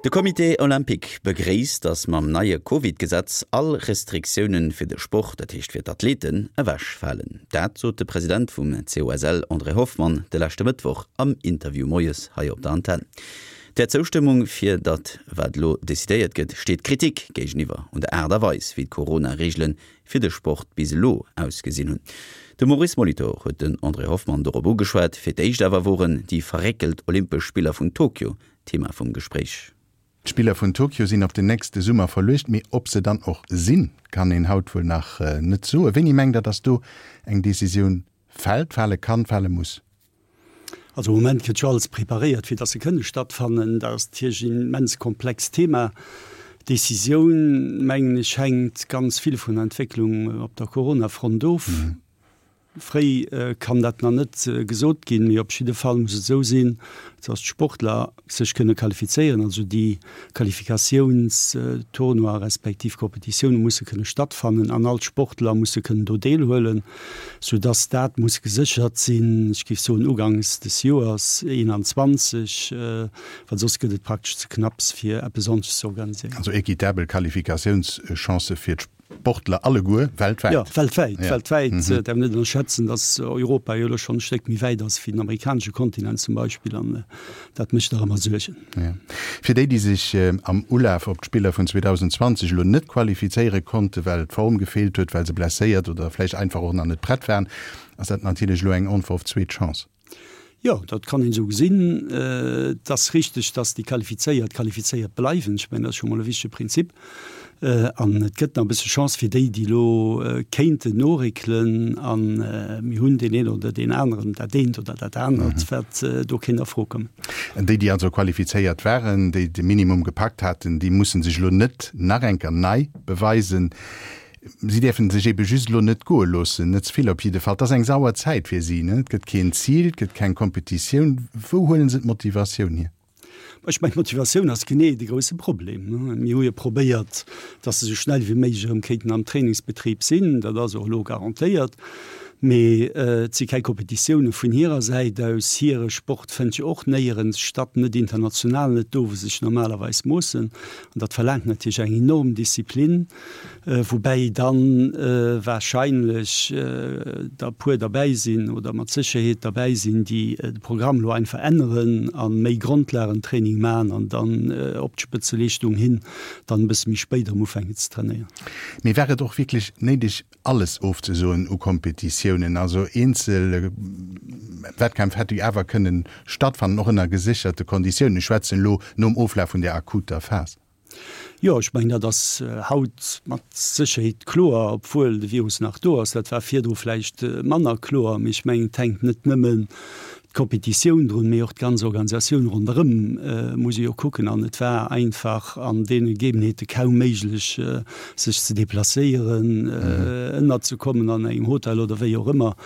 De Comité Olympique begréisst, datt mam neie Covid-Gesetz all Restriktioune fir de Sport, dat heescht fir d'Athleten, ewechfalen. Dat sot de President vum COSL André Hoffmann de leschte Mëttwoch am Interview moies hei op der Antenn. Der Zoustëmmung fir dat wat elo decidéiert gëtt, steet Kritik géigeniwwer un der Aart a Weis, wéi d'Corona-Reegele fir de Sport bis elo ausgesinn hunn. De Maurice Molitor huet den André Hoffmann dorop ugeschwat. Fir d'éischt awer woren déi verréckelt Olympesch Spiller vun Tokio Thema vum Gespréich. D'Spiller vun Tokio sinn op den nächste Summer verluecht, mee ob se dann och sinn, kann een haut wuel nach net soen. Wéini mengt Der, datt do eng Decisioun fält, fale kann, fale muss? Also am Moment gëtt jo alles preparéiert, fir datt se kënne stattfannen. Dat ass natierlech en immens komplext Thema. D'Decisioun, mengen ech, hänkt ganz vill vun der Entwécklung op der Corona-Front of. Fréi kann dat nach net gesot ginn, mee op jidde Fall muss et esou sinn, dass d'Sportler sech kënne qualifizéieren, also déi Qualifikatiounstournoie respektiv Competitioune musse kënne stattfannen an all d'Sportler musse kënnen do deelhuelen, soudass dat muss geséchert sinn, ech géif soen ugangs des Joers 21, well soss gëtt et praktesch ze knapps fir eppes ordentleches ze organiséieren. Also équitabel Qualifikatiounschancë fir Sportler alleguer weltwäit. Jo, weltwäit, weltwäit. Et däerf een net ënnerschätzen, datt Europa jo elo schonn e Stéck méi wäit ass wéi den amerikanesche Kontinent zum Beispill an dat mécht nach ëmmer Suergen. Jo. Fir déi, déi sech am Ulaf op d'Spiller vun 2020 elo net qualifizéiere konnten, well d'Form gefeelt huet, well se blesséiert oder vläicht einfach och nach net prett waren, ass dat natierlech elo eng onverhofft zweet Chance. Jo, dat kann een esou gesinn. Et ass richteg, datt déi Qualifizéiert qualifizéiert bleiwen. Ech mengen, dat ass scho mol e wichtege Prinzip. An et gëtt nach e bësse Chance fir déi, déi elo kéinten noréckelen. A mir hunn deen een oder deen aneren, dat eent oder dat anert, wat do kéint a Fro kommen. Déi, déi also qualifizéiert waren, déi de Minimum gepackt haten, déi musse sech elo net nach eng Kéier nei beweisen. Si däerfen sech ebe just elo net goe loossen, net ze vill op jidde Fall. Et ass eng sauer Zäit fir si, ne? Et gëtt keen Zil, et gëtt keng Kompetitioun. Wou huelen se d'Motivatioun hier? Ech mengen, d'Motivatioun ass genee de grousse Problem. Mir hu jo probéiert, datt se esou schnell wéi méiglech erëm kéinten am Trainingsbetrib sinn. Dat ass och elo garantéiert. Mee et si keng Kompetitioune vun hirer Säit aus. Hire Sport fënnt jo och néierens statt, net international, net do, wou se sech normalerweis moossen. An dat verlaangt natierlech eng enorm Disziplin. Woubäi dann wahrscheinlech der e puer derbäi sinn oder mat Sécherheet derbäi sinn, déi de Programm elo einfach änneren a méi Grondlagentraining maachen an dann op d'Spëtzeleeschtung hin dann e bësse méi spéit erëm ufänken ze trainéieren. Mee war et och wierklech néideg, alles ofzesoen u Kompetitiounen? Also eenzel Wettkämpf hätte jo awer kënnen stattfannen, och ënner gesécherte Konditiounen. Ech schwätzen elo nom Oflaf vun där akuter Phas. Jo, ech mengen, dat ass haut mat Sécherheet kloer, obwuel de Virus nach do ass. Dat war virdru vläicht manner kloer. Mee ech mengen, et hänkt net nëmmen d'Kompetitioun drun, mee och d'ganz Organisatioun ronderëm muss ee jo kucken. An et war einfach an deene Gegebenheete kaum méiglech, sech ze deplacéieren, ënnerzekommen an engem Hotel oder wéi och ëmmer.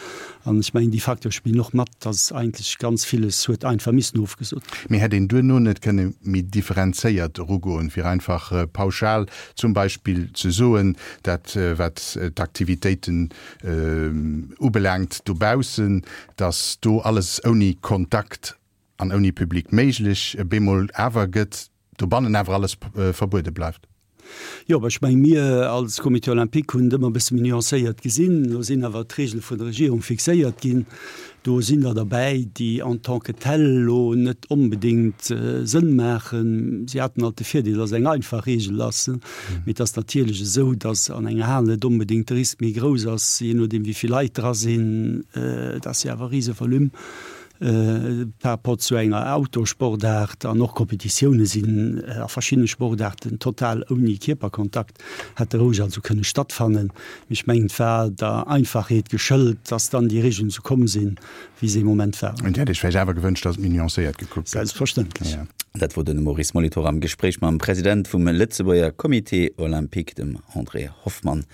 An ech mengen, déi Facteure spillen och mat, dass eigentlech ganz villes huet einfach missen ofgesot ginn. Mee hätt een duerno net kënne méi differenzéiert erugoen, fir einfach pauschal zum Beispill ze soen, dat wat d'Aktivitéiten ubelaangt dobaussen, dass do alles ouni Kontakt an ouni Public méiglech bemol awer gëtt, dobannen awer alles verbuede bleift? Jo, ech mengen, mir als Comité olympique hunn et ëmmer e bësse méi nuancéiert gesinn. Elo sinn awer d'Regele vun der Regierung fixéiert ginn. Do sinn der derbäi, déi en tant que tel elo net onbedéngt Sënn maachen. Si haten alt de Virdeel, dass et eng einfach Regel ass. Mee et ass natierlech esou, dass an enger Hal net onbedéngt de Risk méi grouss ass, jee nodeem wéi vill Leit dra sinn. Et ass jo awer e Risevolume. Par rapport zu enger Outdoor-Sportaart an och Kompetitioune sinn a verschiddene Sportaarten total ouni Kierperkontakt, hätte roueg also kënne stattfannen. Mee ech mengen, et war der Einfachheet geschëlt, dass dann déi Regeln esou komm sinn, wéi se ee Moment waren. Dir hätt Iech vläicht awer gewënscht, dass et méi nuancéiert gekuckt gëtt. Selbstverständlech. Dat wor de Maurice Molitor am Gespréich mam President vum Lëtzebuerger Comité Olympique, dem André Hoffmann.